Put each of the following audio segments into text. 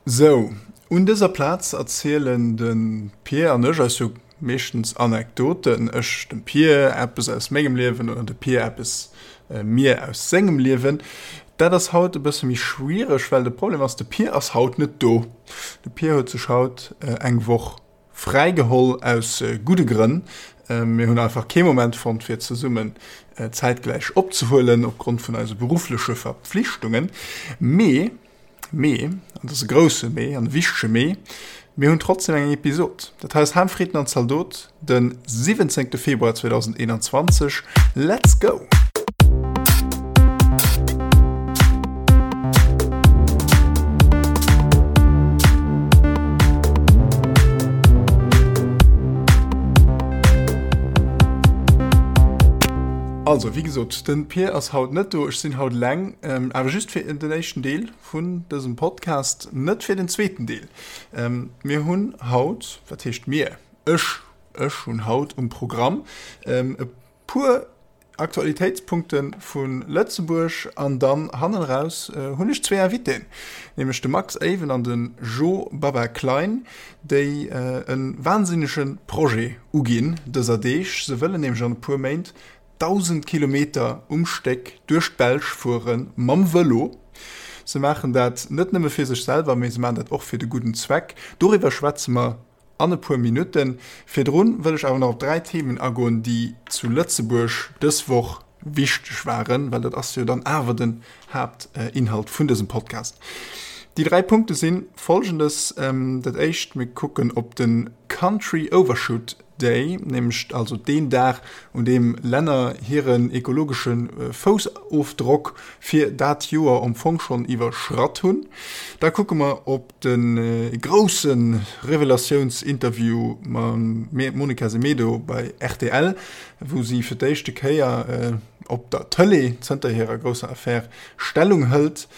Sou, un dëser Plaz erzielen de Pir an ech eis jo meeschtens Anekdoten, ech dem Pir eppes aus mengem Liewen oder de Pir eppes mir aus sengem Liewen. Dat ass haut e bësse méi schwiereg, well de Problem ass, de Pir ass haut net do. De Pir huet sech haut eng Woch fräi geholl, aus gudde Grënn. Mir hunn einfach kee Moment fonnt, fir zesummen zäitgläich opzehuelen, opgrond vun eise beruffleche Verpflichtungen. Mee Mee, an dat ass e grousse Mee an e wichtege Mee, mir hunn trotzdem eng Episod. Dat hei ass Ham, Fritten an Zaldot, de 17. Februar 2021. Let's go! Also, wéi gesot, de Pir ass haut net do, ech sinn haut eleng, awer just fir den éischten Deel vun dësem Podcast, net fir den zweeten Deel. Mir hunn haut, wat heescht mir, ech, ech hunn haut um Programm e puer Aktualitéitspunkte vu Lëtzebuerg an dann hannen eraus hunn ech zwee Invitéen, nämlech de Max Ewen an de Jo Baba Klein, déi e wahnsinnege Projet uginn dëser Deeg. Se wëllen nämlech an e puer Méint 1.000 Kilometer um Stéck duerch d'Belsch fuere mam Vëlo. Se maachen dat net nëmme fir sech selwer, mee se maachen dat och fir de gudden Zweck. Doriwwer schwätze mer an e puer Minutten. Virdrun wëll ech awer nach op 3 Themen agoen, déi zu Lëtzebuerg dës Woch wichteg waren, well dat ass jo dann awer den Haaptinhalt vun dësem Podcast. Déi 3 Punkte si folgendes, Dat éischt, mir kucken op de Country Overshoot Day, nämlech also deen Dag, un deem Länner hiren ekologesche Foussofdrock fir dat Joer am Fong schonn iwwerschratt hunn. Da kucke mer op de grousse Revelatiounsinterview mam Monica Semedo bei rtl, wou si fir d'éischte Kéier op der Tëlee zënter hirer grousser Affär Stellung hëlt.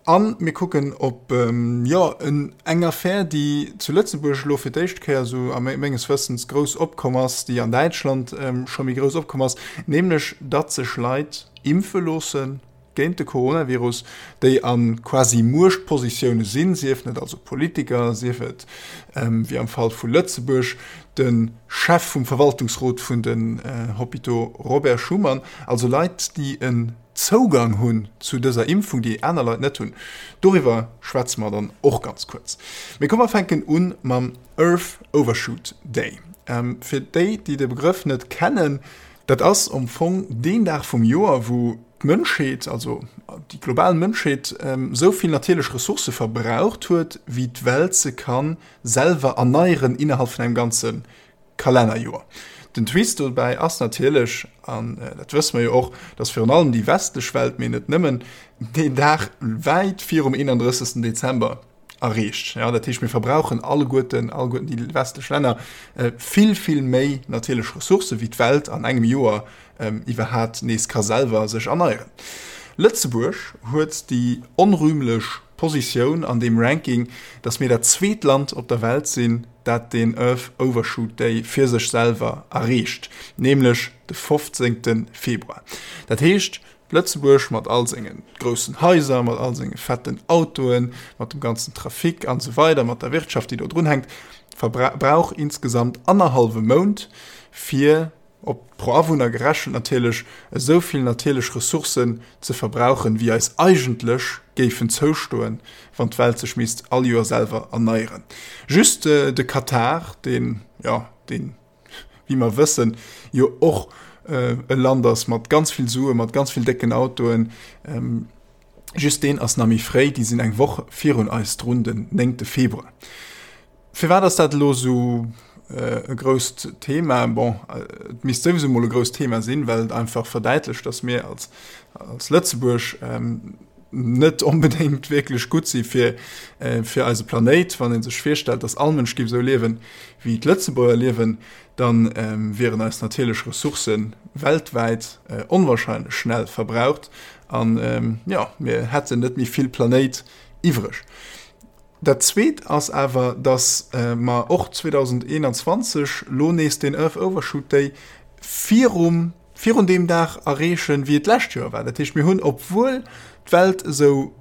A mir kucken op, jo, eng Affär, déi zu Lëtzebuerg elo fir d'éischt Kéier esou a menges Wëssens grouss opkomm ass, déi an Däitschland scho méi grouss opkomm ass, nämlech datt sech Leit impfe loosse géint de Coronavirus, déi a quasi Muechtpositioune sinn, siefen et also Politiker, sief et, wéi am Fall vu Lëtzebuerg, de Chef vum Verwaltungsrot vun den Hôpitaux Robert Schuman, also Leit, déi e Zougang hunn zu dëser Impfung, déi aner Leit net hunn. Doriwwer schwätze mer dann och ganz kuerz. Mee komm mer fänken un mam Earth Overshoot Day. Fir déi, déi de Begrëff net kennen, dat ass am Fong deen Dag vum Joer, wou d'Mënschheet, also déi global Mënschheet, esou vill natierlech Ressourcë verbraucht huet, wéi d'Welt se ka selwer erneieren innerhalb vun engem ganze Kalennerjoer. Den Twist dobäi ass natierlech, an dat wësse mer jo och, datt virun allem déi westlech Welt, mee net nëmmen, deen Dag wäit virum 31. Dezember erreecht. Jo, dat heescht, mir verbrauchen alleguerten, alleguerten déi westlech Länner, vill, vill méi natierlech Ressourcë wéi d'Welt an engem Joer iwwerhat nees ka selwer sech erneieren. Lëtzebuerg huet déi onrühmlech Positioun an deem Ranking, datt mir dat zweet Land op der Welt sinn, dat den Earth Overshoot Day fir sech selwer erreecht, nämlech de 15. Februar. Dat heescht, Lëtzebuerg mat all senge groussen Haiser, mat all senge fetten Autoen, mat dem ganzen Trafic an esou weider, mat der Wirtschaft, déi do drunhänkt, verbrauch insgesamt annerhallwe Mount, fir op pro Awunner gerechent natierlech, esou vill natierlech Ressourcen ze verbrauchen, wéi eis eigentlech géifen zoustoen, wann d'Welt sech misst all Joer selwer erneieren. Just de Katar, deen, jo, deen, wéi mer wëssen, jo och e Land ass mat ganz vill Suen, mat ganz vill décken Autoen, just deen ass nach méi fréi, déi sinn eng Woch virun eis drun, den néngte Februar. Firwat ass dat elo esou e grousst Thema? Bon, et misst souwisou mol e grousst Thema sinn, well et einfach verdäitlecht, datt mir als, als Lëtzebuerg net onbedéngt wierklech gutt si fir, fir eise Planéit. Wann ee sech virstellt, datt all Mënsch géif esou liewen, wéi d'Lëtzebuerger liewen, da wieren eis natierlech Ressourcë weltwäit onwahrscheinlech schnell verbraucht an, jo, mir hätten net méi vill Planéit iwwreg. Dat Zweet ass awer, datt mer och 2021 lo nees deen Earth Overshoot Day virum, virun deem Dag erreechen, wéi et d'lescht Joer war. Dat heescht, mir hunn, obwuel d'Welt esou.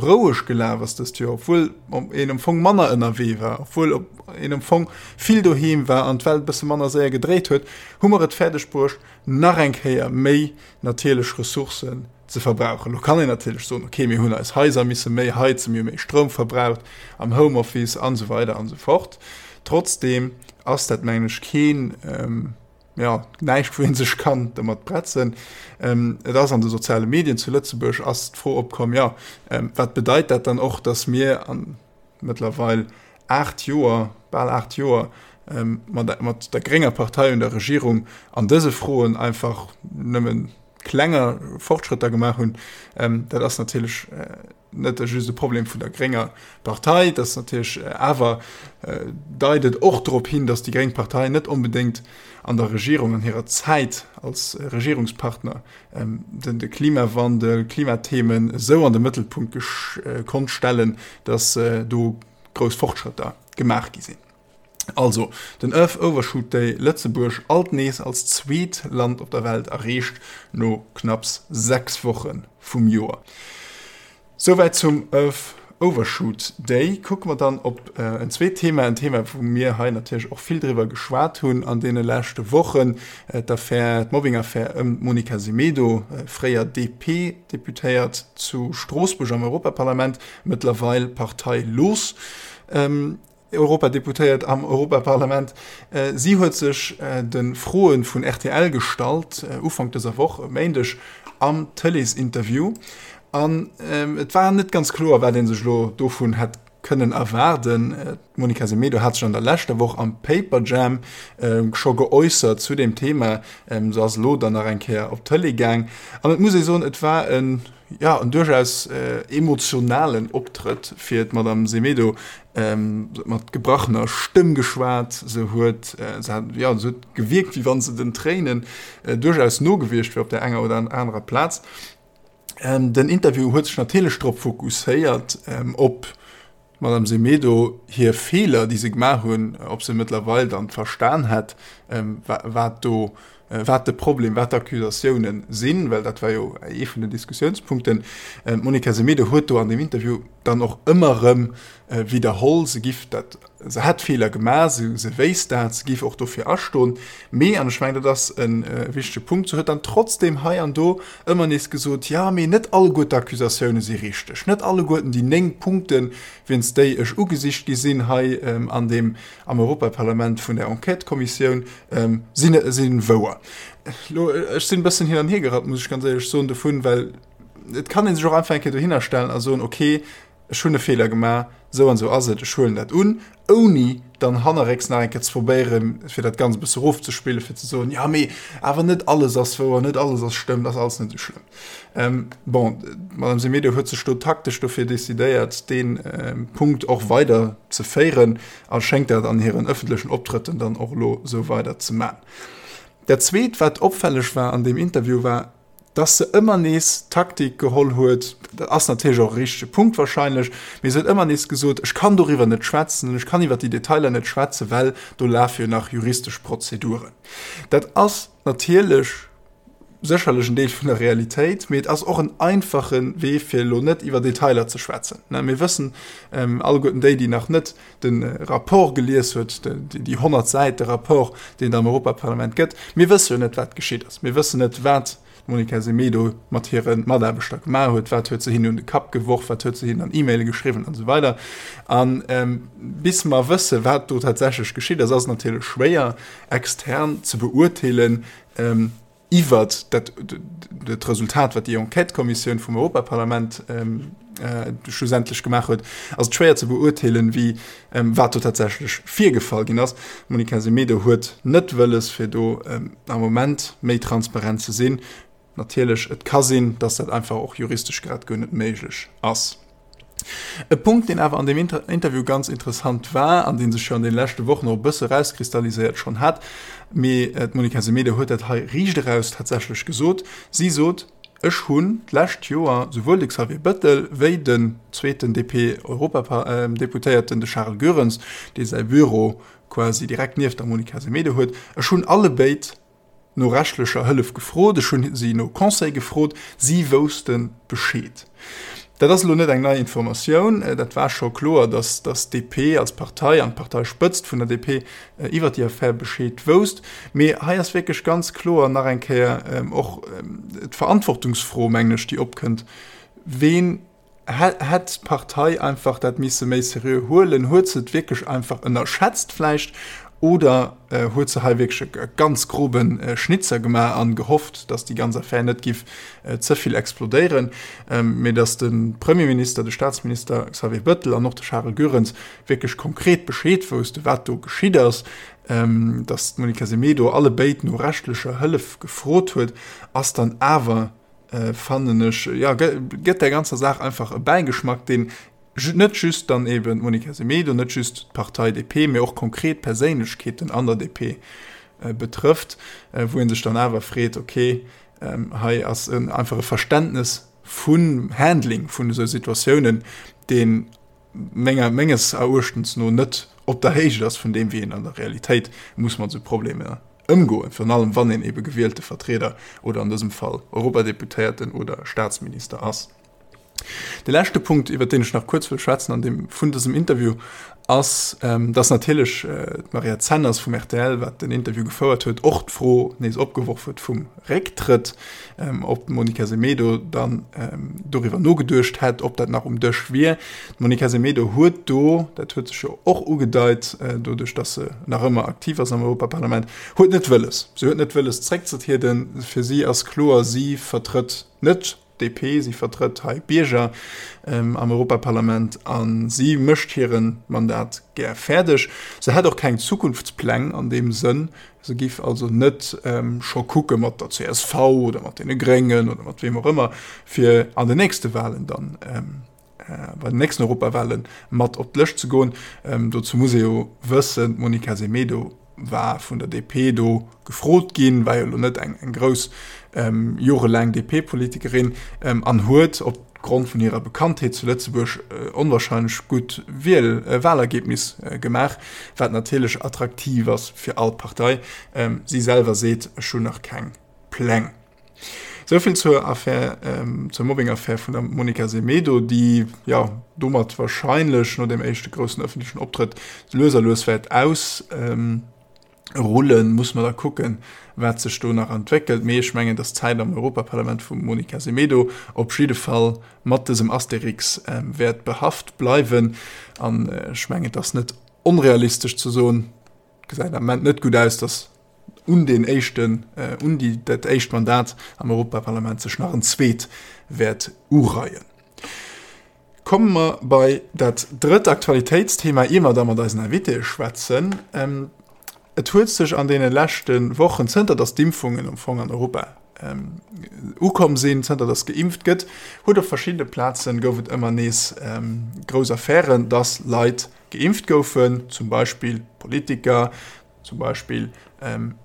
roueg gelaf ass dëst Joer, obwuel een am Fong manner ënnerwee war, obwuel een am Fong vill doheem war an d'Welt e bësse manner séier gedréit huet, hu mer et fäerdeg bruecht, nach eng Kéier méi natierlech Ressourcen ze verbrauchen. Lo kann een natierlech soen, okay, mir hunn eis Haiser misse méi heizen, mir hu méi Stroum verbraucht am Homeoffice an esou weider an esou fort. Trotzdeem ass dat, mengen ech, keen, jo, näischt, wou ee sech kann domat bretzen. Et ass an de soziale Medien zu Lëtzebuerg ass d'Fro opkomm, jo, wat bedeit dat dann och, datt mir an mëttlerweil 8 Joer, bal 8 Joer, mat, mat der grénger Partei un der Regierung an dëse Froen einfach nëmmen klenger Fortschrëtter gemaach hunn. Dat ass natierlech net just e Problem vun der grénger Partei, dat ass natierlech awer deit et och drop hin, datt déi gréng Partei net onbedéngt an der Regierung, an hirer Zäit als Regierungspartner den de Klimawandel, Klimathemen esou an de Mëttelpunkt konnt stellen, datt do grouss Fortschrëtter gemaach gi sinn. Also, den Earth Overshoot Day Lëtzebuerg alt nees als zweet Land op der Welt erreecht, no knapps 6 Woche vum Joer. Souwäit zum Earth Overshoot Day. Kucke mer dann op en zweet Thema, en Thema wou mir hei natierlech och vill driwwer geschwat hunn an deene leschte Wochen, d'Affär, d'Mobbing-Affär ëm d'Monica Semedo, fréier DP-Deputéiert zu Stroossbuerg am Europaparlament, mëttlerweil parteilos. Europadeputéiert am Europaparlament. Si huet sech de Froe vun rtl gestallt, Ufank dëser Woch, e Méindeg am Tëleesinterview. An et war net ganz kloer, wat ee sech elo dovun hätt kënnen erwaarden. D'Monica Semedo hat sech an der leschter Woch am Paperjam scho geäussert zu deem Thema. Se ass elo dann nach eng Kéier op d'Tëlee gaang. An et muss ee soen, et war en Jo, en duerchaus emotionalen Optrëtt fir d'Madame Semedo. Se huet mat gebrachener Stëmm geschwat, se huet, se hat, jo, se huet gewierkt, wéi wann se den Tréinen duerchaus no gewiescht wier op där enger oder anerer Plaz. Den Interview huet sech natierlech drop fokusséiert, op D'Madame Semedo hir Feeler, déi se gemaach hunn, ob se mëttlerweil dann verstan hätt, wat do, wat de Problem, wat d'Accusatiounen sinn, well dat war jo ee vun den Diskussiounspunkten. D'Monica Semedo huet do an deem Interview dann och ëmmer erëm widderholl, se giff dat, se hätt Feeler gemaach, se, se wéisst dat, se giff och dofir astoen. Mee, an ech mengen, dat ass e wichtege Punkt, se huet dann trotzdem hei an do ëmmer nees gesot, jo, mee net alleguer d'Accusatioune si richteg, net alleguerten déi 9 Punkten, wéinst déi ech ugesicht gi sinn hei an deem, am Europaparlament vun där Enquêtëkommissioun, sinn, si wouer. Elo, ech sinn e bëssen hin an hier gerappt, muss ech ganz éierlech soen, dovun, well et kann ee sech och einfach eng Kéier dohinner stellen a soen, okay, ech hunn e Feeler gemaach, esou an esou ass et, ech huelen dat un, ouni dann hannerrécks nach eng Kéier ze probéieren, fir dat Ganzt e bësse erofzespillen, fir ze soen, jo mee awer net alles ass wouer, net alles ass stëmmt, ass alles net esou schlëmm. Bon, d'Madame Semedo huet sech do taktesch dofir decidéiert, dee Punkt och weider ze féieren a schéngt dat an hiren ëffentlechen Optrëtten dann och elo esou weider ze man. Dat Zweet, wat opfälleg war an deem Interview, war, dass se ëmmer nees d'Taktik geholl huet, dat ass natierlech och e richtege Punkt wahrscheinlech, mee se huet ëmmer nees gesot, ech kann doriwwer net schwätzen, ech kann iwwer déi Detailer net schwätzen, well do lafe jo nach juristesch Prozeduren. Dat ass natierlech sécherlech en Deel vun der Realitéit, mee et ass och en einfache Wee, fir elo net iwwer Detailer ze schwätzen. Mir wëssen alleguerten, déi, déi nach net de Rapport gelies huet, déi 100 Säite Rapport, deen et am Europaparlament gëtt, mir wësse jo net, wat geschitt ass. Mir wëssen net, wat d'Monica Semedo mat hire Mataarbechter gemaach huet, wat huet se hinnen un de Kapp geworf, wat huet se hinnen an E-Maile geschriwwen an esou weider. A bis mer wësse, wat do tatsächlech geschitt ass, ass et natierlech schwéier, extern ze beurteelen, iwwert dat dat Resultat, wat déi Enquêtëkommissioun vum Europaparlament schlussendlech gemaach huet, ass et schwéier ze beurteelen, wéi wat do tatsächlech virgefall ginn ass. D'Monica Semedo huet net wëlles, fir do am Moment méi transparent ze sinn. Natierlech, et ka sinn, datt dat einfach och juristesch grad guer net méiglech ass. E Punkt, deen awer an deem Interview ganz interessant war an dee sech jo an deene leschte Wochen och e bësse erauskristalliséiert schonn hat, mee d'Monica Semedo huet dat hei riicht eraus tatsächlech gesot, Si sot, Ech hunn d'lescht Joer souwuel de Xavier Bettel wéi den zweeten DP-Europadeputéierten, de Charles Goerens, dee säi Büro quasi direkt nieft der Monica Semedo huet, ech hunn allebéid no rechtlecher Hëllef gefrot, ech hunn si no Conseil gefrot, si wousste Bescheed. Dat ass elo net eng nei Informatioun, dat war scho kloer, datt d'DP als Partei an d'Parteispëtzt vun der DP iwwer déi Affär Bescheed wousst. Mee hei ass wierklech ganz kloer nach eng Kéier och d'Verantwortungsfro, mengen ech, déi opkënnt, Ween hätt d'Partei einfach dat misse méi seriö huelen? Huet se et wierklech einfach ënnerschätzt vläicht oder huet se hei wierklech e ganz grobe Schnitzer gemaach an gehofft, datt déi ganz Affär net giff ze vill explodéieren, mee datt de Premierminister, de Staatsminister Xavier Bettel an och de Charel Goerens wierklech konkret Bescheed wousste wat do geschitt ass, datt d'Monica Semedo allebéid no rechtlecher Hëllef gefrot huet, ass dann awer fannen ech, jo, gëtt där ganzer Saach einfach e Bäigeschmack, deen net just dann eben d'Monica Semedo, net just d'Partei DP, mee och konkret Perséinlechkeeten an der DP betrëfft, wou ee sech dann awer freet, okay, hei ass einfach e Verständnes vum Handling vun esou Situatiounen, deen menger, menges Eruechtens no net op der Héicht ass vun deem, wéi een an der Realitéit muss mat esou Problemer ëmgoen, virun allem wann een ebe gewielte Vertrieder oder an dësem Fall Europadeputéierten oder Staatsminister ass. De leschte Punkt, iwwert deen ech nach kuerz wëll schwätzen an deem vun dësem Interview, ass, dass natierlech d'Maria Zenners vum rtl, wat den Interview gefouert huet, och d'Fro nees opgeworf huet vum Récktrëtt, ob d'Monica Semedo dann doriwwer nogeduecht hätt, ob dat nach um Dësch wier. D'Monica Semedo huet do, dat huet sech jo och ugedeit, doduerch datt se nach ëmmer aktiv ass am Europaparlament, huet net wëlles, se huet net wëlles zréckzetrieden. Fir si ass kloer, si vertrëtt net DP, si vertrëtt hei d'Bierger am Europaparlament a si mécht hire Mandat gär fäerdeg. Se hätt och keng Zukunftspläng an deem Sënn. Se giff also net scho kucke mat der csv oder mat deene Gréngen oder mat weem och ëmmer, fir an den nächste Walen dann, bei den nächsten Europawale mat op d'Lëscht ze goen. Dozou muss ee jo wëssen, d'Monica Semedo war vun der DP do gefrot ginn, war jo elo net eng eng grouss jorelaang DP-Politikerin an huet opgrond vun hirer Bekanntheet zu Lëtzebuerg onwahrscheinlech gutt Wiel Wahlergebnis gemaach, wat natierlech attraktiv ass fir all Partei. Si selwer seet, ech hunn nach keng Pläng. Souvill zur Affär, zur Mobbing-Affär vun der Monica Semedo, déi, jo, domat wahrscheinlech no deem éischte groussen ëffentlechen Optrëtt lues a lues wäert ausrullen. Muss mer da kucken, wat sech do nach entwéckelt. Mee ech mengen, dass d'Zäit am Europaparlament vum Monica Semedo op jidde Fall mat dësem Asterix wäert behaft bleiwen. An ech mengen, et ass net onrealistesch ze soen, et gesäit am Ament net gutt aus, dass un deen éischten, un déi, dat éischt Mandat am Europaparlament sech nach en zweet wäert ureien. Komme mer bei dat drëtt Aktualitéitsthema, ier mer da mat eisen Invitéë schwätzen. Et huet sech an deene leschte Wochen, zënter datt d'Impfungen am Fong an Europa ukomm sinn, zënter datt geimpft gëtt, huet op verschiddene Plazen, gouf et ëmmer nees grouss Affären, datt Leit geimpft goufen, zum Beispill Politiker, zum Beispill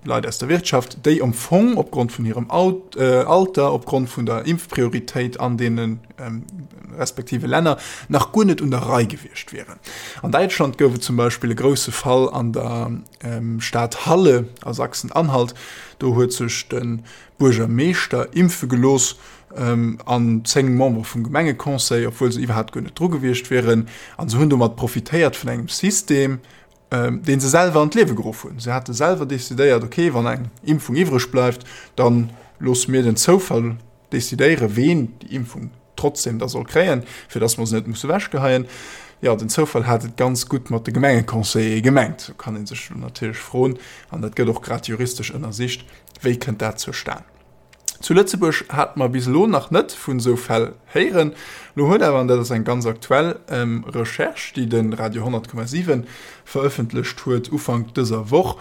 Leit aus der Wirtschaft, déi am Fong opgrond vun hirem Alter, opgrond vun der Impfprioritéit an deene respektive Länner nach guer net un der Rei gewiescht wieren. An Däitschland gouf et zum Beispill e grousse Fall an der Stad Halle a Sachsen-Anhalt. Do huet sech de Buergermeeschter impfe gelooss an 10 Membere vum Gemengeconseil, obwuel se iwwerhaapt guer net dru gewiescht wieren. A se hunn domat profitéiert vun engem System, dee se selwer an d'Liewe geruff hunn. Se hate selwer decidéiert, okay, wann eng Impfung iwwreg bleift, da loosse mir den Zoufall decidéieren, ween déi Impfung trotzdem da soll kréien, fir datt mer se net musse ewechgeheien. Jo, den Zoufall hat et ganz gutt mat de Gemengeconseillere gemengt. Do kann ee sech elo natierlech froen, an dat gëtt och grad juristesch ënnersicht, wéi kënnt dat zustan? Zu Lëtzebuerg hate mer bis elo nach net vun esou Fäll héieren. Lo huet awer, an dat ass eng ganz aktuell Recherche, déi de Radio 100,7 verëffentlecht huet Ufank dëser Woch,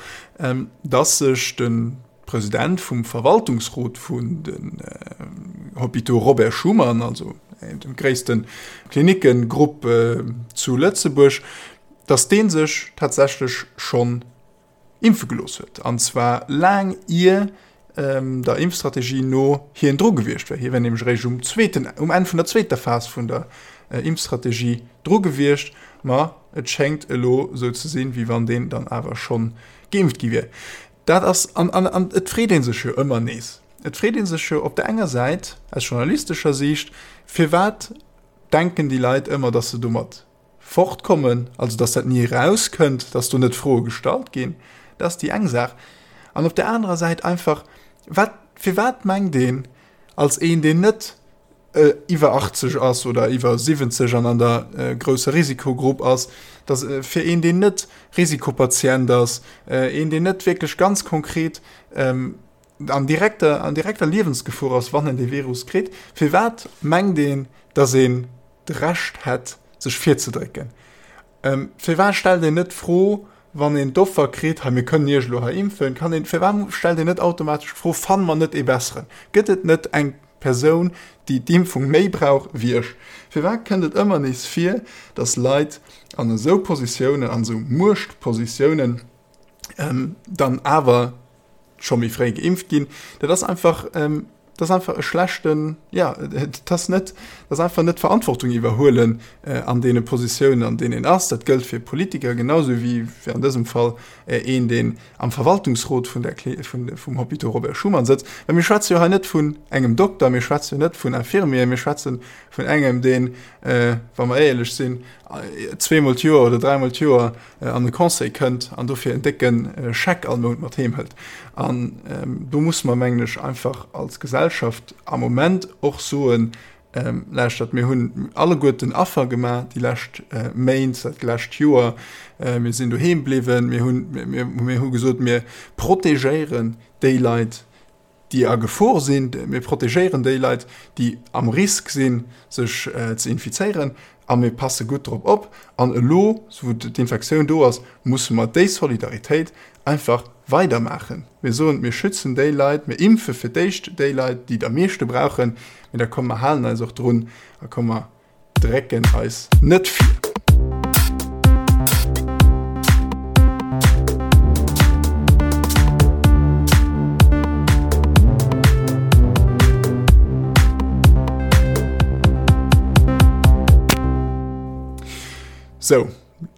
dass sech de President vum Verwaltungsrot vun den Hôpitaux Robert Schuman, also dem gréisste Klinickengrupp zu Lëtzebuerg, dass dee sech tatsächlech schonn impfe gelooss huet, an zwar laang ier der Impfstrategie no hien dru gewiescht wär. Hie wär nämlech eréischt um zweeten, um Enn vun der zweeter Phas vun der Impfstrategie dru gewiescht. Ma et schéngt elo esou ze sinn, wéi wann deen dann awer schonn geimpft gi wier. Dat ass, an, an, an et freet ee sech jo ëmmer nees, et freet ee sech jo op der enger Säit aus journalistescher Siicht, firwat. Denken déi Leit ëmmer, dass se domat fortkommen, also dass dat ni erauskënnt, dass do net Froe gestallt ginn? Dat ass déi eng Saach. An op där anerer Säit einfach, wat, firwat mengt een als een, deen net iwwer 80 ass oder iwwer 70 an an der grousser Risikogrupp ass, dass fir een, deen net Risikopatient ass, een, deen net wierklech ganz konkret an direkter, an direkter Liewensgefor ass, wann en dee Virus kritt, firwat mengt een, dass een d'Recht hätt, sech virzedrécken? Firwat stellt een net d'Fro, wann een d'Offer kritt, hei mir kënnen Iech elo hei impfen, kann een, firwat stellt een net automatesch d'Fro, fanne mer net ee besseren? Gëtt et net eng Persoun, déi d'Impfung méi brauch wéi ech? Firwat kënnt et ëmmer nees vir, datt Leit an esou Positiounen, an esou Muechtpositiounen, dann awer scho méi fréi geimpft ginn? Dat ass einfach, dat ass einfach e schlechten, jo, dat ass net, dat ass einfach net Verantwortung iwwerhuelen an deene Positiounen, an deenen een ass. Dat gëllt fir Politiker genau sou wéi fir an dësem Fall een, deen am Verwaltungsrot vun der, vun, vum Hôpital Robert Schuman sëtzt. Well mir schwätze jo hei net vun engem Dokter, mir schwätze jo net vun Infirmieren, mir schwätze vun engem, deen, wa mer éierlech sinn, zweemol d'Joer oder dräimol d'Joer an de Conseil kënnt an dofir en décke Scheck all Mount mat heem hëlt. An do musse mer, mengen ech, einfach als Gesellschaft am Moment och soen, Lauschtert, mir hunn alleguerten Affer gemaach déi lescht Méint, dat lescht Joer. Mir sinn doheem bliwwen, mir hunn, mir hu gesot, mir protegéieren déi Leit, déi a Gefor sinn, mir protegéieren déi Leit, déi am Risk sinn, sech ze infizéieren a mir passe gutt drop op. An elo, wou d'Infektioun do ass, musse mer déi Solidaritéit einfach weidermaachen. Mir soen, mir schützen déi Leit, mir impfe fir d'éischt déi Leit, déi et am meeschte brauchen, mee da komm mer halen eis och drun a komm mer drécken eis net vir. Sou,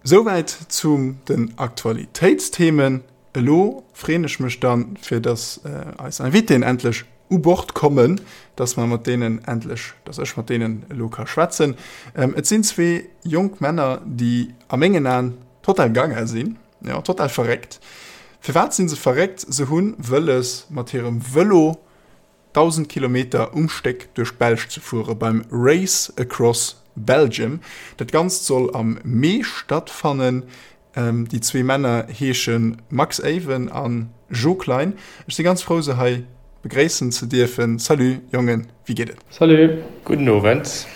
souwäit zu den Aktualitéitsthemen. Elo freeën ech mech dann, fir dass eis Invitéen endlech u Bord kommen, dass mer mat deenen endlech, dass ech mat deenen elo ka schwätzen. Et sinn zwee jonk Männer, déi a mengen Aen total gaga sinn, jo, total verréckt. Firwat si se verréckt? Se hu wëlles, mat hirem Vëlo 1.000 Kilometer um Stéck duerch d'Belsch ze fuere beim Race Across Belgium. Dat Ganzt soll am Mee stattfannen. Déi zwee Männer heesche Max Ewen a Jo Klein. Ech si ganz frou se hei begréissen ze dierfen. Salut Jongen, wéi geet et? Salut! Gudden Owend.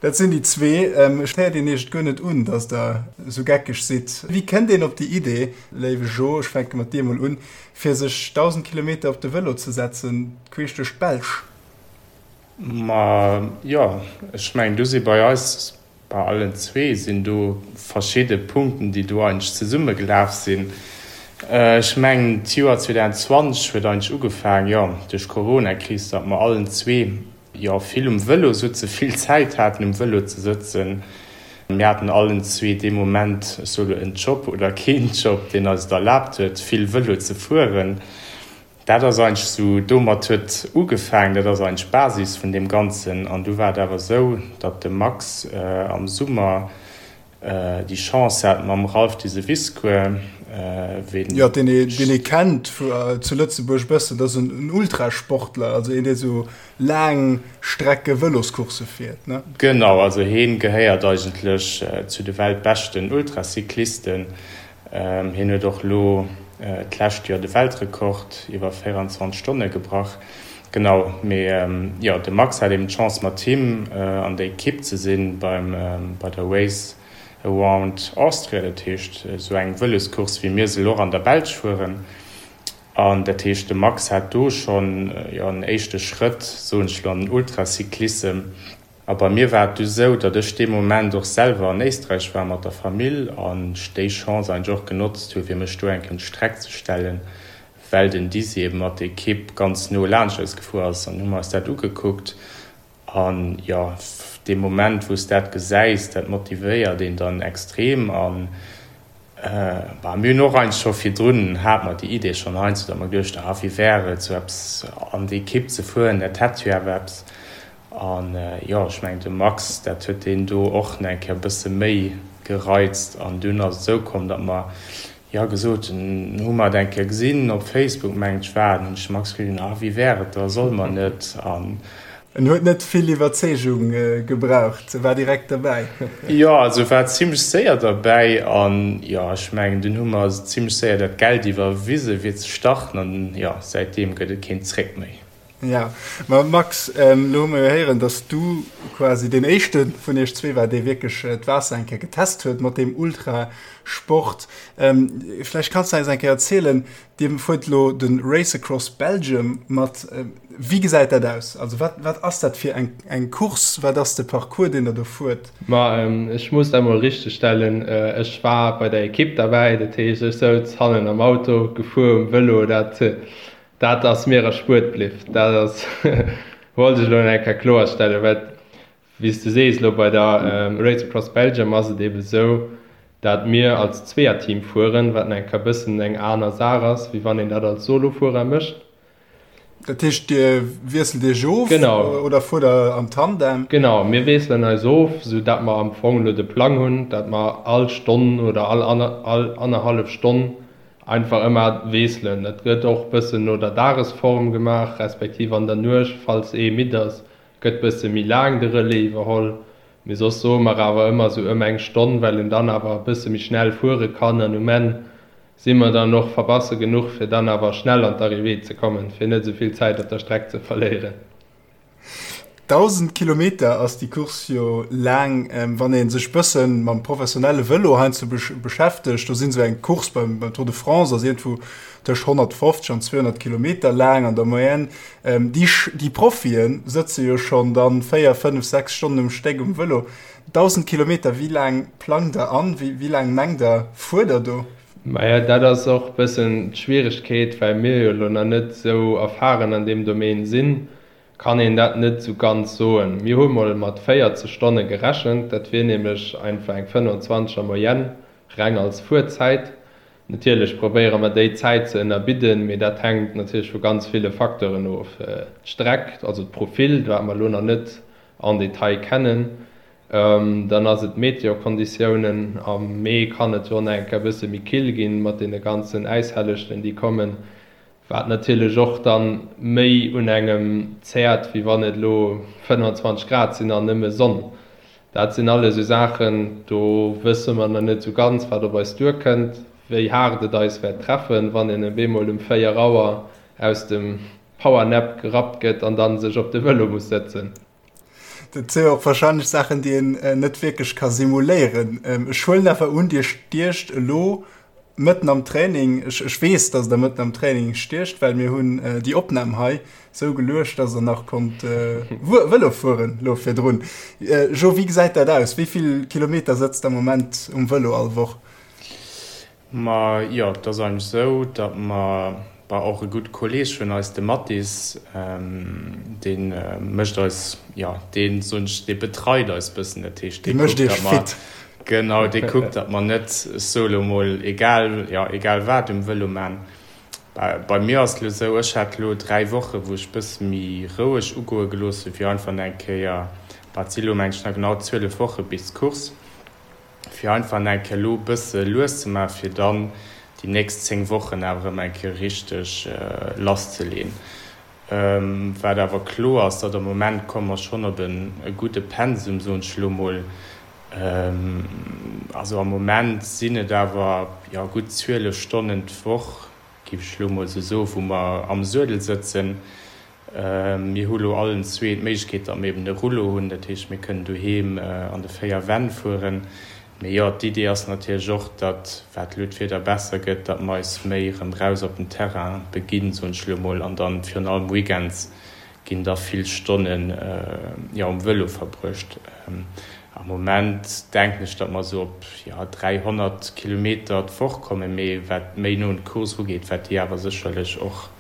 Dat sinn déi zwee. Ech héiert een iech et guer net un, datt der esou geckeg sidd. Wéi kënnt een op déi Idee, léiwe Jo, ech fänke mat dir emol un, fir sech 1.000 Kilometer op de Vëlo ze setzen, queesch duerch d'Belsch? Ma jo, ech mengen, do si bei eis, bei allen zwee sinn do verschidde Punkten, déi do eigentlech zesummegelaf sinn. Ech mengen, d'Joer 2020 huet eigentlech ugefaangen, jo, duerch d'Coronakris, datt mer allen zwee jo vill um Vëlo sutze, vill Zäit haten um Vëlo ze sëtzen. Mir haten allen zwee dee Moment, ech soe lo en Job oder keen Job, deen eis et erlaabt huet, vill Vëlo ze fueren. Dat ass eigentlech esou, domat huet ugefaangen, dat ass eigentlech d'Basis vun deem Ganzen. An du war et awer esou, datt de Max am Summer Déi Chance hat mam Ralph Diseviscourt, ween. Jo, deen ee, deen ee kennt zu Lëtzebuerg e bëssen, dat ass en Ultrasportler, also een, dee sou laang Strecke Vëloscoursse fiert, ne? Genau, also heen gehéiert eigentlech zu de weltbeschten Ultracyclisten. Hien huet och elo d'lescht Joer de Weltrekord iwwer 24 Stonne gebrach. Genau, mee jo, de Max hat eben d'Chance mat him an der Ekipp ze sinn beim bei der Race Around Austria, dat heescht esou eng Vëloscourse wéi mir se elo och an der Belsch fueren. An dat heescht de Max hat do schonn jo en éischte Schrëtt, soen ech elo, an den Ultracyclissem. A bei mir war et du sou, datt ech dee Moment och selwer an Éisträich war mat der Famill an ech déi Chance eigentlech och genotzt hu fir mech do eng Kéier un d'Streck ze stellen, well den Dizzy eben mat der Ekipp ganz no laanscht eis gefuer ass an hu mer eis dat ugekuckt an jo, dee Moment wou s dat gesäis, dat motivéiert een dann extrem an bah, mir hunn och eigentlech scho virdrun hate mer déi Idee schonn heiansdo, datt mer geduecht hu, ah wéi wär et sou eppes an déi Ekipp ze fueren, dat hätt jo awer eppes. An jo, ech mengen de Max, dat huet deen do och nach eng Kéier e bësse méi gereizt. An dunn ass et esou komm, datt mer jo gesot hunn, hu mer et eng Kéier gesinn op Facebook, mengen ech war et, hunn ech de Max gefrot, ah wéi wär et da, solle mer net? An. En huet net vill Iwwerzeegung gebraucht, e war direkt derbäi. Jo, also war zimlech séier derbäi. An jo, ech mengen dunn hu mer zimlech séier dat Geld iwwerwise fir ze starten an jo, säitdeem gëtt et keen Zréck méi. Ja, ma Max, elo hu mer jo héieren, dass du quasi deen éischte vun iech zwee war, dee wierklech d'Waasser eng Kéier getest huet mat deem Ultrasport. Vläicht kanns de eis eng Kéier erzielen, Dir fuert elo de Race Across Belgium mat. Wéi gesäit dat aus? Also wat, wat ass dat fir eng, eng Course? Wat ass de Parcours, deen Der do fuert? Ma ech muss dat mol richtegstellen, ech war bei der Ekipp derbäi, dat heescht ech souz hannen am Auto, gefuer um Vëlo, dat Dat ass mir erspuert bliff. Dat ass, wollt ech elo nach eng Kéier kloerstellen, well, wéi s de sees, elo bei der Race Across Belgium ass et eebe sou, dat mir als Zweeërteam fueren, wat nach eng Kéier e bëssen eng aner Saach ass, wéi wann een dat als Solofuerer mécht. Dat heescht, Dir wiesselt Iech of oder fuert Der am Tandem? Genau, mir wiesselen eis of, sou dat mer am Fong elo de Plang hunn, dat mer all Stonn oder all annerhallef Stonn Einfach ëmmer wiesselen. Dat gëtt och bëssen no der Dagesform gemaach, respektiv an der Nuecht, falls ee midd ass, gëtt bësse méi laang de Relais iwwerholl. Mee soss soe mer awer ëmmer sou ëm eng Stonn, well een dann awer e bësse méi schnell fuere kann an um Enn si mer dann och verbasse genuch, fir dann awer schnell an d'Arrivée ze kommen, fir net esou vill Zäit op der Streck ze verléieren. 1.000 Kilometer ass déi Course jo laang. Wann ee sech bësse mam professionelle Vëlo heiansdo beschäftegt, do sinn esou eng Course beim Tour de France ass iergendwou tëscht 150 an 200 Kilometer laang an der Moyenne. Déi Profie sëtze jo schonn dann 4, 5, 6 Stonnen um Stéck um Vëlo. 1.000 Kilometer, wéi laang plangt der an? Wéi laang mengt der, fuert der do? Maja, dat ass och bëssen d'Schwieregkeet, well mir jo elo nach net esou erfahren an deem Domaine sinn, kann een dat net esou ganz soen. Mir hu mol mat 40 Stonne gerechent, dat wier nämlech einfach eng 25 er Moyenne, reng als Fuerzäit. Natierlech probéiere mer déi Zäit ze ënnerbidden, mee dat hänkt natierlech vu ganz ville Facteuren of, d'Streck, also d'Profil, wat mer elo nach net en Detail kennen, Dann ass et d'Meteokonditiounen. Am Mee kann et jo nach eng Kéier e bësse méi kill ginn, mat deene ganzen Äishellechten, déi kommen, wat natierlech och dann méi un engem zäert, wéi wann et elo 25 Grad sinn an nëmme Sonn. Dat sinn alles esou Saachen, do wësse mer nach net esou ganz, wat op eis duerkënnt, wéi haart et eis wäert treffen, wann een op eemol um 4 Auer aus dem Powernap gerappt gëtt an dann sech op de Vëlo muss sëtzen. Dat si jo och warscheinlech Saachen, déi een net wierklech ka simuléieren. Ech huelen awer un, Dir stiecht elo mëtten am Training. Ech, ech weess, datt Der mëtten am Training stiecht, well mir hunn déi Opnam hei sou geluecht, datt Der nach konnt Vëlo fueren elo virdrun. Jo, wéi gesäit dat aus? Wéi vill Kilometer sëtzt Der am Moment um Vëlo all Woch? Ma jo, et ass eigentlech esou, datt mer, bah, och e gudde Kolleeg vun eis, de Mathis, dee mécht eis, jo, dee soen ech, dee betreit eis bëssen. Dat heescht, dee kuckt, datt mer, genau, dee kuckt, datt mer net, ech soe lo mol, egal, jo, egal wat um Vëlo man. Bah, bei mir ass et lo esou, ech hat lo 3 Woche wou ech bësse méi roueg ugoe gelooss hunn, fir einfach nach eng Kéier, bah, et si lo meng ech nach genau 12 Woche bis d'Course, fir einfach nach eng Kéier elo e bësse lues ze maachen, fir dann déi nächst 10 Wochen awer erëm eng Kéier richteg lasszeleen. Wat awer kloer ass, datt am Moment komme mer schonn op e gudde Pensum, soen ech elo mol. Also am Moment sinn et awer, jo, gutt 12 Stonnen d'Woch, géif ech elo mol esou soen, wou mer am Suedel sëtzen. Mir hu lo allen zwee d'Méiglechkeet, datt mir eben e Rouleau hunn, dat heescht, mir kënnen doheem an de véier Wänn fueren. Mee jo, d'Idee ass natierlech och, datt, wat elo d'Wieder besser gëtt, datt mer eis méi erëm raus op den Terrain beginn, soen ech elo mol, an dann virun allem weekends ginn da vill Stonnen, jo, um Vëlo verbruecht. Am Moment denken ech, datt mer esou op, jo, 300 Kilometer d'Woch kommen, mee wat méi no un d'Course erugeet, wäert déi awer sécherlech och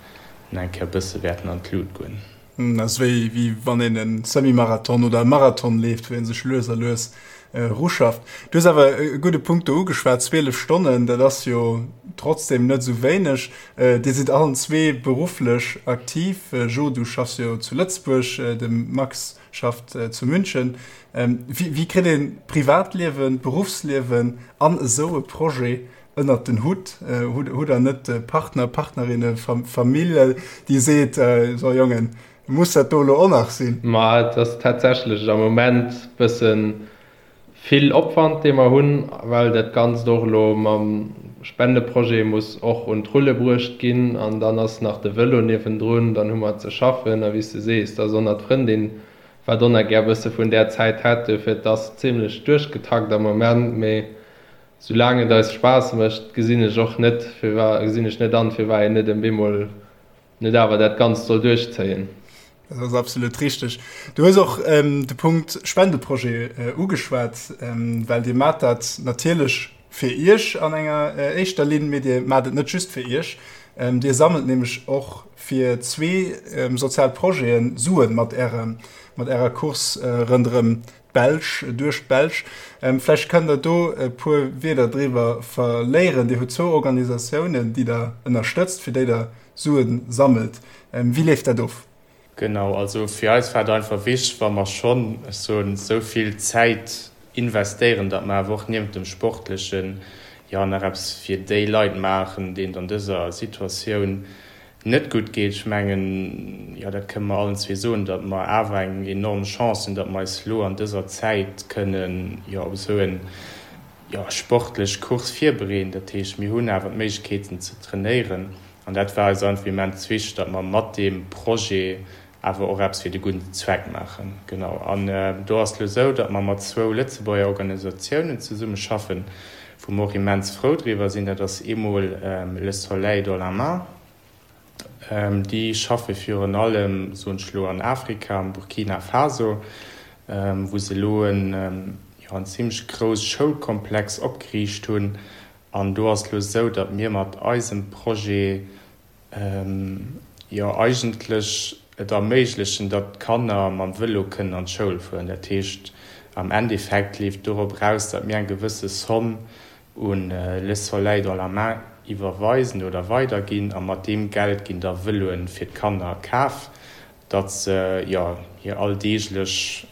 nach eng Kéier e bësse wäerten an d'Lut goen. Dat ass wéi wéi wann een e Semi-Marathon oder e Marathon leeft, wou ee sech lues a lues eruschafft. Du hues awer e gudde Punkt do ugeschwat, 12 Stonnen, dat ass jo trotzdem net esou wéineg. Dir sidd allen zwee berufflech aktiv. Jo, du schaffs jo zu Lëtzebuerg, de Max. schafft zu München. Wéi kritt een d'Privatliewen, d'Beruffsliewen an esou e Projet ënnert den Hutt? Hutt der net Partner, Partnerinne, Famill, déi seet, so Jongen, muss dat do elo och nach sinn? Ma et ass tatsächlech am Moment bëssen vill Opwand dee mer hunn, well dat Ganzt och elo mam Spendeprojet muss och un d'Rulle bruecht ginn an dann ass nach de Vëlo niewendrun, dann hu mer ze schaffen a wéi s de sees, da ass och nach d'Frëndin wat och nach gär bësse vun där Zäit hätt. Duerfir et ass zimlech duerchgetakt am Moment, mee soulaang et eis Spaass mécht, gesinn ech och net firwa gesinn ech net an, firwat een net en bemol net awer dat Ganzt soll duerchzéien. Dat ass absolut richteg. Du hues och de Punkt Spendeprojet ugeschwat, well Dir maacht dat natierlech fir Iech an enger éischter Linn, mee Dir maacht et net just fir Iech. Dir sammelt nämlech och fir zwee sozial Projete Suen mat Ärer Course ronderëm d'Belsch, duerch d'Belsch. Vläicht kënnt Der do e puer Wierder driwwer verléieren. Dir hutt zwou Organisatiounen, déi Der ënnerstëtzt, fir déi Der Sue sammelt. Wéi leeft dat of? Genau, also fir eis war et einfach wichteg, wa mer schonn, ech soen, esou vill Zäit investéieren, datt mer awer och niewent dem Sportlechen, jo, nach eppes fir déi Leit maachen, deenen et an dëser Situatioun net gutt geet. Ech mengen, jo, dat kënne mer allen zwee soen, datt mer awer eng enorm Chance hunn, datt mer eis elo an dëser Zäit kënnen, jo, op esou en, jo, sportlech Course virbereeden. Dat heescht, mir hunn awer d'Méiglechkeeten ze trainéieren an dat war eis einfach immens wichteg, datt mer mat deem Projet awer och eppes fir de gudden Zweck maachen. Genau. An do ass et elo esou, datt mer mat zwou Lëtzebuerger Organisatiounen zesummeschaffen, wou mer och immens frou driwwer sinn. Dat ass eemol Le Soleil dans la main. Déi schaffe virun allem, soen ech elo, an Afrika, am Burkina Faso, wou se elo en, jo, en zimlech grouss Schoulkomplex opgeriicht hunn. An do ass et elo esou, datt mir mat eisem Projet, jo eigentlech et erméiglechen, datt d'Kanner mam Vëlo kënnen an d'Schoul fueren. Dat heescht, am Endeffekt leeft dorop eraus, datt mir eng gewësse Somm un Le Soleil dans la main iwwerweisen oder weiderginn a mat deem Geld ginn da Vëloen fir d'Kanner kaf, datt se jo hir alldeeglech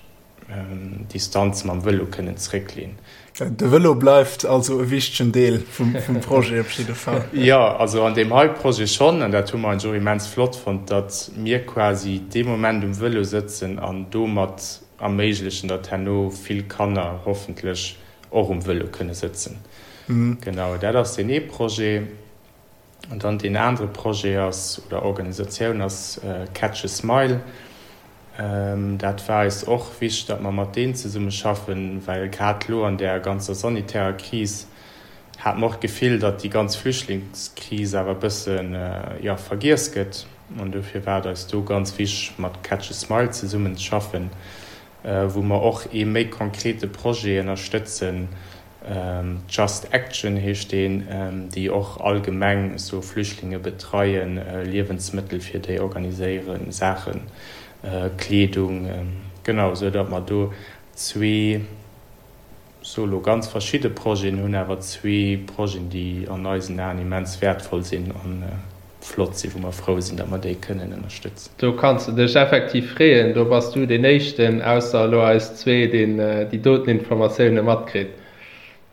Distanz mam Vëlo kënnen zréckleen. De Vëlo bleift also e wichtegen Deel vum Projet op jidde Fall. Jo, also an deem hei Projet schonn, an dat hu mer eigentlech och immens flott fonnt, datt mir quasi dee Moment um Vëlo sëtzen an domat erméiglechen, datt herno vill Kanner hoffentlech och um Vëlo kënne sëtzen. Genau, dat ass deen ee Projet. An dann deen anere Projet ass, oder Organisatioun ass Catch a Smile. Dat war eis och wichteg, datt mer mat deenen zesumme schaffen, well grad elo an där ganzer sanitärer Kris hate mer och d'Gefill, datt déi ganz Flüchtlingskris awer e bësse, jo, vergiess gëtt. An dofir war et eis do ganz wichteg, mat Catch a Smile zesummen ze schaffen, wou mer och ee méi konkrete Projet ënnerstëtzen, Just Action heescht deen, déi och allgemeng esou Flüchtlinge betreien, Liewensmëttel fir déi organiséieren, Saachen, Kleedung, genau, esou datt mer do zwee, soe lo ganz verschidde Projeten hunn, awer zwee Projeten, déi an eisen Aen immens wäertvoll sinn an flott sinn, wou mer frou sinn, datt mer déi kënnen ënnerstëtzen. Do kanns de dech effektiv freeën, do bass du deen éischten, ausser elo eis zwee, deen déi doten Informatioune matkritt.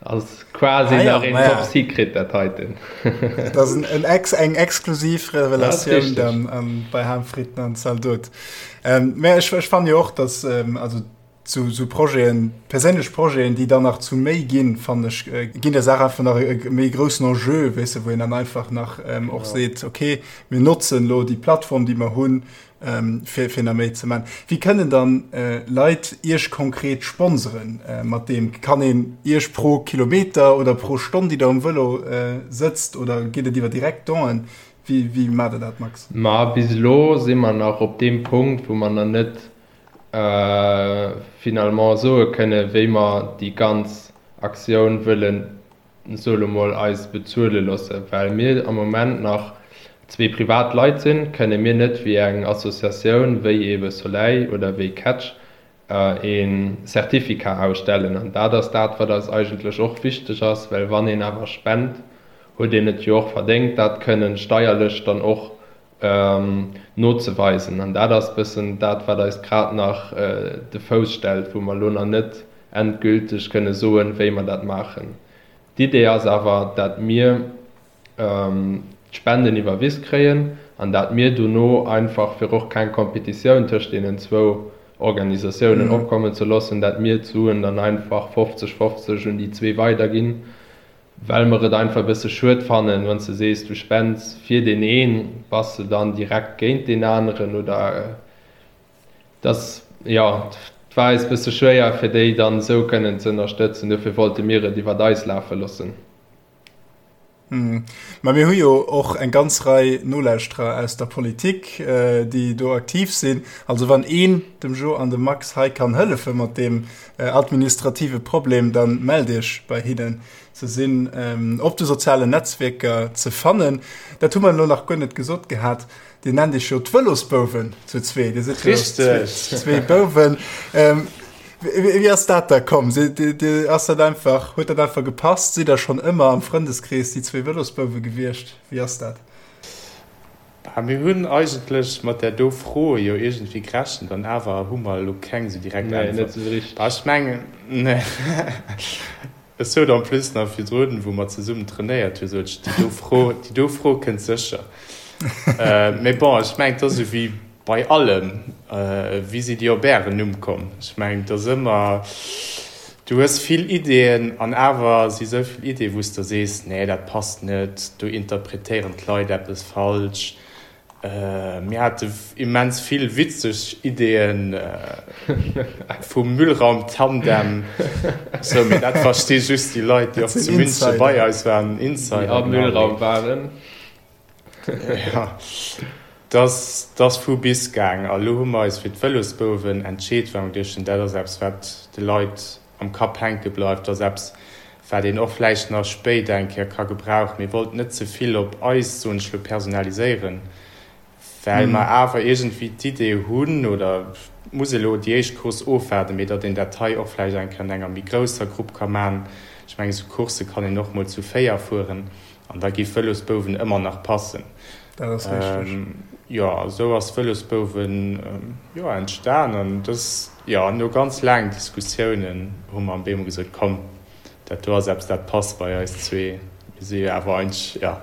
Ass quasi ah, ja, nach een Top Secret dat heiten. Dat ass en ex, eng exklusiv Revelatioun dann an, bei Ham Fritten an Zaldot. Ähm, mä ech, ech fannen jo och, dass ähm, also Sou, sou Projeten, perséinlech Projeten, déi dann nach zu méi ginn, fannen ech, ginn der Saach einfach nach e méi groussen Enjeu, weess de, wou een dann einfach nach och seet, okay, mir notzen elo déi Plattform, déi mer hunn, fir, fir nach méi ze maachen. Wéi kënnen dann Leit Iech konkret sponseren mat deem? Kann een Iech pro Kilometer oder pro Stonn, déi Der um Vëlo sëtzt, oder geet et iwwer direkt Donen? Wéi, wéi maacht Der dat, Max? Ma bis elo si mer nach op deem Punkt, wou mer nach net finalement soe kënne wéi mer déi ganz Aktioun wëllen, soe lo mol, eis bezuele loosse. Well mir am Moment nach zwee privat Leit sinn, kënne mir net wéi eng Associatioun wéi eebe Soleil oder wéi Catch e Certificat ausstellen. An dat ass dat, wat eis eigentlech och wichteg ass, well wann een awer spent, huet een et jo och verdéngt, dat kënnen steierlech dann och. Nozeweisen. An dat ass bëssen dat, wat eis grad nach de Fouss stellt, wou mer elo nach net endgülteg kënne soen, wéi mer dat maachen. D'Idee ass awer, dat mir d'Spenden iwwerwis kréien an dat mir dono einfach, fir och keng Competitioun tëscht deenen zwou Organisatiounen opkommen ze loossen, dat mir d'Suen dann einfach 50, 50 un déi zwee weiderginn. Well mer et einfach e bësse schued fannen, wann s de sees, du spends fir deen een, bass de dann direkt géint deen aneren oder dass, jo, et war eis e bësse schwéier, fir déi dann esou kënnen ze ënnerstëtzen. Dofir wollte mir et iwwert eis lafe loossen. Mä mir hu jo och eng ganz Rei Nolauschterer aus der Politik, déi do aktiv sinn. Also wann een dem Jo an dem Max hei kann hëllefe mat deem administrative Problem, dann mellt iech bei hinnen. Se sinn op de sozialen Netzwierker ze fannen. Dat hu mer elo nach guer net gesot gehat. Dir nennt iech jo d'Vëlosbouwen zu zwee. Dir sidd jo zwee Bouwen. Wéi ass dat da komm? Ass dat einfach, huet dat einfach gepasst? Sidd der schonn ëmmer am Frëndeskrees déi zwee Vëlosbouwe gewiescht? Wéi ass dat? Bah, mir hunn eigentlech mat där do Fro jo iergendwéi gerechent an awer hu mer elo keng esou direkt Äntwert. Nee, net esou richteg. Bah, ech mengen, nee. Ech sot en plus nach virdrun, wou mer zesummen trainéiert hunn, sot ech, déi do Fro, déi do Fro kënnt sécher. Mee bon, ech mengen, et ass esou wéi bei allem, Wéi sidd Dir op Ären Numm komm? Ech mengen, et ass ëmmer, du hues vill Ideeën an awer si sou vill Ideeën, wou s de sees, nee, dat passt net, do interpretéieren d'Leit eppes falsch. Mir hate immens vill witzeg Ideeën vum Müllraum-Tandem, sou, mee dat versti just déi Leit, déi och zu München bei eis waren, Insider, déi am Müllraum waren. Jo, dat ass vu bis gaang. A lo hu mer eis fir d'Vëlosbouwen entscheet, well mer geduecht hunn, dat ass eppes, wat de Leit am Kapp hänke bleift. Dat ass eppes, wat een och vläicht nach spéider eng Kéier ka gebrauchen. Mir wollten net ze vill op eis, soen ech lo, personaliséieren, well mer awer iergendwéi d'Idee hunn, oder muss elo déi éischt Course ofwaarden, mee datt een dat hei och vläicht eng Kéier an enger méi grousser Grupp ka maachen. Ech mengen, esou Coursse kann een och mol zu 4 fueren. An da gi Vëlosbouwen ëmmer nach passen. Dat ass richteg. Jo, esou ass Vëlosbouwen, jo, entstan. An dës, jo, no ganz laangen Diskussiounen hu mer am Bemo gesot, komm, dat do ass eppes, dat passt bei eis zwee. Mir si jo awer eigentlech, jo,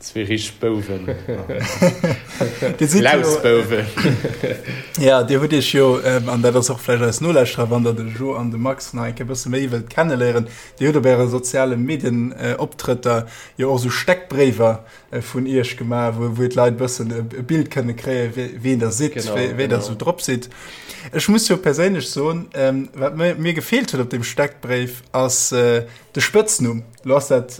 zwee richteg Bouwen. Dir sidd jo. Lausbouwen. Jo, Dir hutt Iech jo, an dat ass och vläicht eis Nolauschterer, wann Der de Jo an de Max nach eng Kéier e bësse méi wëllt kenneléieren, Dir hutt op Äre soziale Medienoptrëtter jo och esou Steckbréiwer vun Iech gemaach, wou wou d'Leit e bëssen e Bild kënne kréien, wien Der sidd, wéi Der esou drop sidd. Ech muss jo perséinlech soen, wat mir gefeelt huet op deem Steckbréif, ass de Spëtznumm. Lo ass dat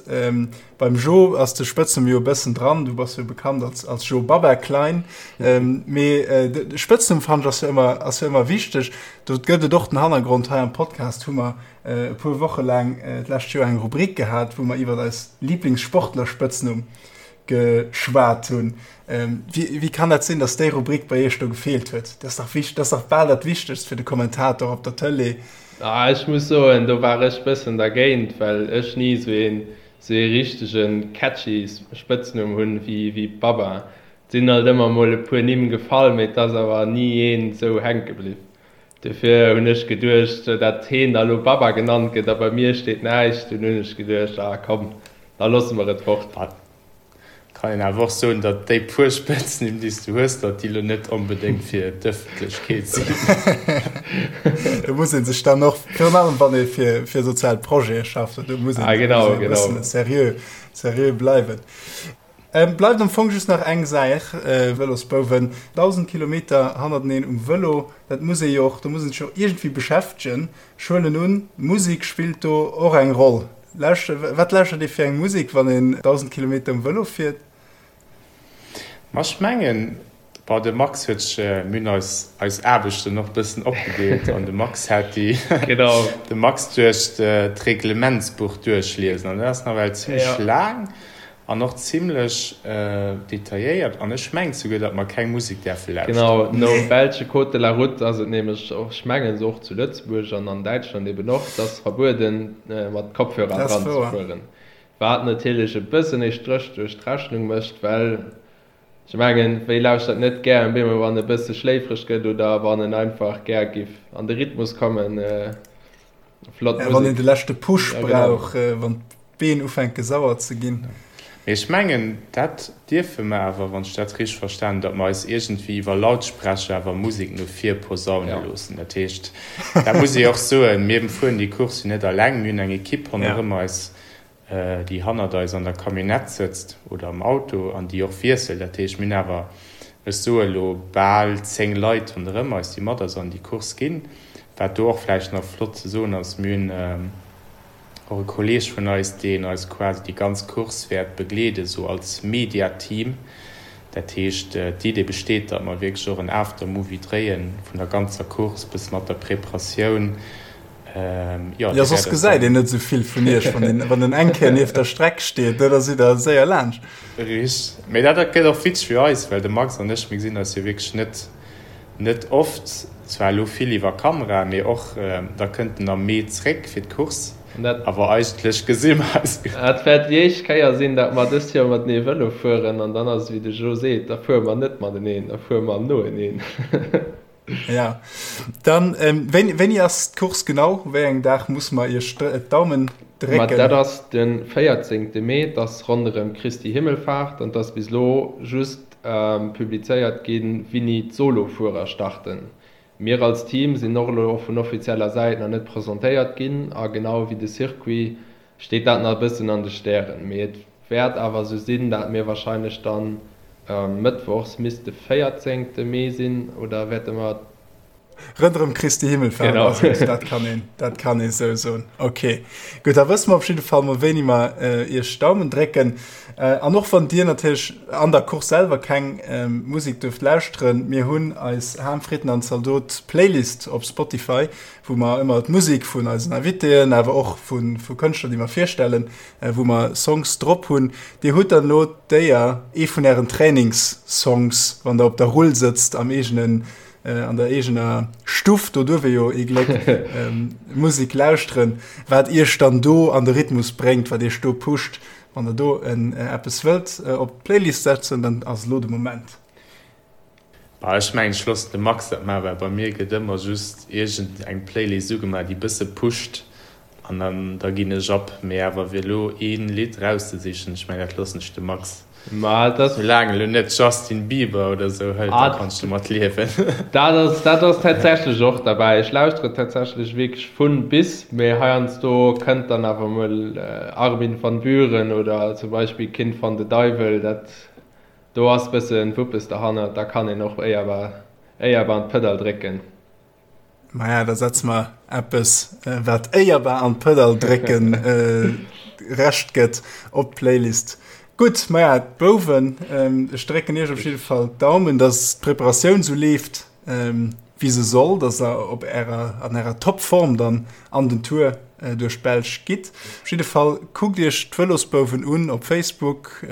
beim Jo ass de Spëtznumm jo e bëssen dran, du bass jo bekannt als als Jo Baba Klein. Mee de Spëtznumm fannen ech ass jo ëmmer ass jo ëmmer wichteg. Do gëtt et och den Hannergrond, hei am Podcast hu mer e puer Woche laang d'lescht Joer eng Rubrik gehat, wou mer iwwer eis Lieblingssportler-Spëtznumm geschwat hunn. Wéi, wéi kann dat sinn, datt déi Rubrik bei Iech do gefeelt huet? Dat ass dach wicht, dat ass dach bal dat Wichtegst fir de Kommentator op der Tëlee. Ah, ech muss soen, do war ech bëssen dergéint, well ech ni esou een, esou ee richtege catchy Spëtznumm hunn wéi, wéi Baba. Et sinn alt ëmmer mol e puer Nimm gefall, mee et ass awer ni een esou hänke bliww. Dofir hunn ech geduecht, dat heen da lo Baba genannt gëtt a bei mir steet näischt. Dunn hunn ech geduecht, ah komm, da loosse mer et fort. Et kann een awer och soen, datt déi puer Spëtznimm, déi s du hues, datt déi lo net onbedéngt fir d'Ëffentlechkeet sinn. Do muss ee sech dann och, virun allem wann ee fir sozial Projete schafft, do muss een e bëssen seriö, seriö bleiwen. Bleift am Fong just nach eng Saach, Vëlosbouwen, 1.000 Kilometer hannerteneen um Vëlo, dat muss ee jo och, do muss een sech jo iergendwéi beschäftegen. Ech huelen un, Musek spillt do och eng Roll. Wat lauschtert ee fir eng Musek, wann een 1.000 Kilometer um Vëlo fiert? Ma ech mengen, bon, de Max huet sech, mir hunn eis eis Aarbechten och bëssen opgedeelt an de Max hat déi, de Max duerch d'Reglementsbuch duerchliesen an dat ass nawell zimmlech laang. An och zimlech detailléiert. An ech mengen souguer, datt mer keng Musek däerfe lauschteren. Genau, nom belsche Code de la route ass et nämlech och, ech mengen se och zu Lëtzebuerg an an Däitschland eben och, et ass verbueden mat Kopfhörer dran ze fueren. Wat natierlech e bëssen ee Stréch duerch d'Rechnung mécht, well. Ech mengen, wie lauschtert net gär en bemol wann e bësse schléifreg gëtt oder wann en einfach gär giff an de Rhythmus kommen. Flott Musek. Wann een de leschte Push brauch, wann d'Been ufänke sauer ze ginn. Mee ech mengen, dat dierfe mer awer, wann ech dat richteg verstan hunn, datt mer eis iergendwéi iwwer Lautsprecher awer Musek no vir posaune loossen. Dat heescht, dat muss ee och soen, mir fueren déi Course jo net eleng, mir hunn eng Ekipp ronderëm eis, déi hannert eis an der Camionnette sëtzt oder am Auto an déi och wiesselt. Dat heescht, mir hunn awer, ech soe elo, bal 10 Leit ronderëm eis, déi mat eis an déi Course ginn. Wat do och vläicht nach flott ze soen ass, mir hunn och e Kolleeg vun eis, deen eis quasi déi ganz Course wäert begleeden, esou als Mediateam. Dat heescht, d'Idee besteet, datt mer wierklech och en Aftermovie dréien vun der ganzer Course, bësse mat der Preparatioun, Jo, ja, soss gesäit een net esou vill vun iech, wann een, wann en eng Kéier nieft der Streck steet, ne, da sidd der séier laanscht. Richteg. Mee dat gëtt och witzeg fir eis, well de Max an ech, mir gesinn eis jo wierklech net, net oft, zwar elo vill iwwer Kamera, mee och da kënnt en am Mee zréck fir d'Course, awer eigentlech gesi mer eis. Et wäert déi éischt Kéier sinn, datt mer dëst Joer matenee Vëlo fueren an dann ass et wéi de Jo seet, da fuere mer net mateneen, da fuere mer noeneen. Ja, dann ähm, wéini, wéini ass d'Course genau? Wéi engem Dag muss mer Iech d'Daumen drécken? Ma dat ass de 14. Mee, 't ass ronderëm Christi Himmelfahrt an 't ass bis elo just publizéiert ginn, wéini d'Solo-Fuerer starten. Mir als Team sinn och elo vun offizieller Säit nach net presentéiert ginn a genau wéi de Circuit steet dat nach e bëssen an de Stären, mee et wäert awer esou sinn, dat mir wahrscheinlech dann mëttwochs, misst de 14 Mee sinn, oder wäerte mer. Ronderëm Christi Himmelfahrt ass et, dat kann een, dat kann ee sou soen. Ok, gutt, da wësse mer op jidde Fall mol wéini mer iech d'Daumen drécken. An och wann dir natierlech an der Course selwer keng Musek duerft lauschteren, mir hunn eis Ham, Fritten an Zaldot Playlist op Spotify, wou mer ëmmer d'Musek vun eisen Invitéen, awer och vu Kënschtler, déi mer virstellen, wou mer Songs drop hunn. Dir hutt dann elo d'Éier, ee vun ären Trainingssongs, wann der op der Rull sëtzt am eegenen, an der eegener Stuff, do duerf ee jo ee Gléck Musek lauschteren, wat iech dann do an de Rhythmus bréngt, wat iech do pusht. Wann der do eppes wëllt op d'Playlist setzen, dann ass elo de Moment. Bah, ech mengen ech loossen de Max dat maachen, well bei mir gëtt ëmmer just iergend eng Playlist ugemaach déi bësse pusht an dann da ginn ech ab. Mee awer fir elo een Lidd rauszesichen, ech mengen dat loossen ech dem Max. Ma et ass. Soulaang elo net Justin Bieber oder sou hëlt, da kann ech domat liewen. Dat ass, dat ass tatsächlech och derbäi. Ech lauschtere tatsächlech wierklech vun bis, mee heiansdo kënnt dann awer mol Armin van Buuren oder zum Beispill Kind van de Duivel, dat Do ass bëssen Wuppes derhannert, da kann een och éierbar éierbar an d'Pëdall drécken. Maja, da setze mer eppes, wat éierbar an d'Pëdall drécken Recht gëtt, op d'Playlist. Gutt, maja, d'Bouwen, ech drécken iech op jidde Fall d'Daumen, dass d'Preparatioun sou leeft, wéi se soll, dass der op ärer, an ärer Topform dann an den Tour duerch d'Belsch gitt. Op jidde Fall kuckt iech d'Vëlosbouwen un op Facebook,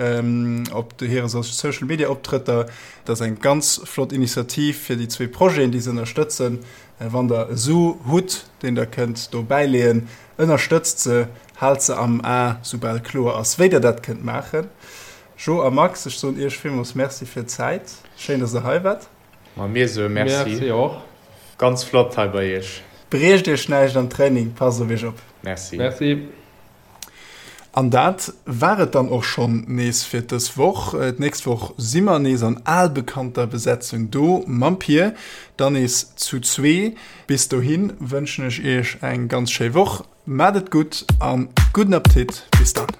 op hire Social Media Optrëtter. Dat ass eng ganz flott Initiativ fir déi zwee Projeten, déi se ënnerstëtzen. Wann der e Su hutt, deen der kënnt do bäileeën, ënnerstëtzt se, haalt se am A, soubal kloer ass, wéi der dat kënnt maachen. Jo a Max, ech soen iech villmools Merci fir d'Zäit. Schéin, dass der hei waart. Ma mir soe Merci. Merci och. Ganz flott hei bei iech. Briecht iech näischt am Training, passt op iech op. Merci. Merci. An dat war et dann och schonn nees fir dës Woch. D'nächst Woch si mer nees an albekannter Besetzung do mam Pir, dann nees zu zwee. Bis dohi wënschen ech iech eng ganz schéi Woch. Maat et gutt an gudden Appetit. Bis dann.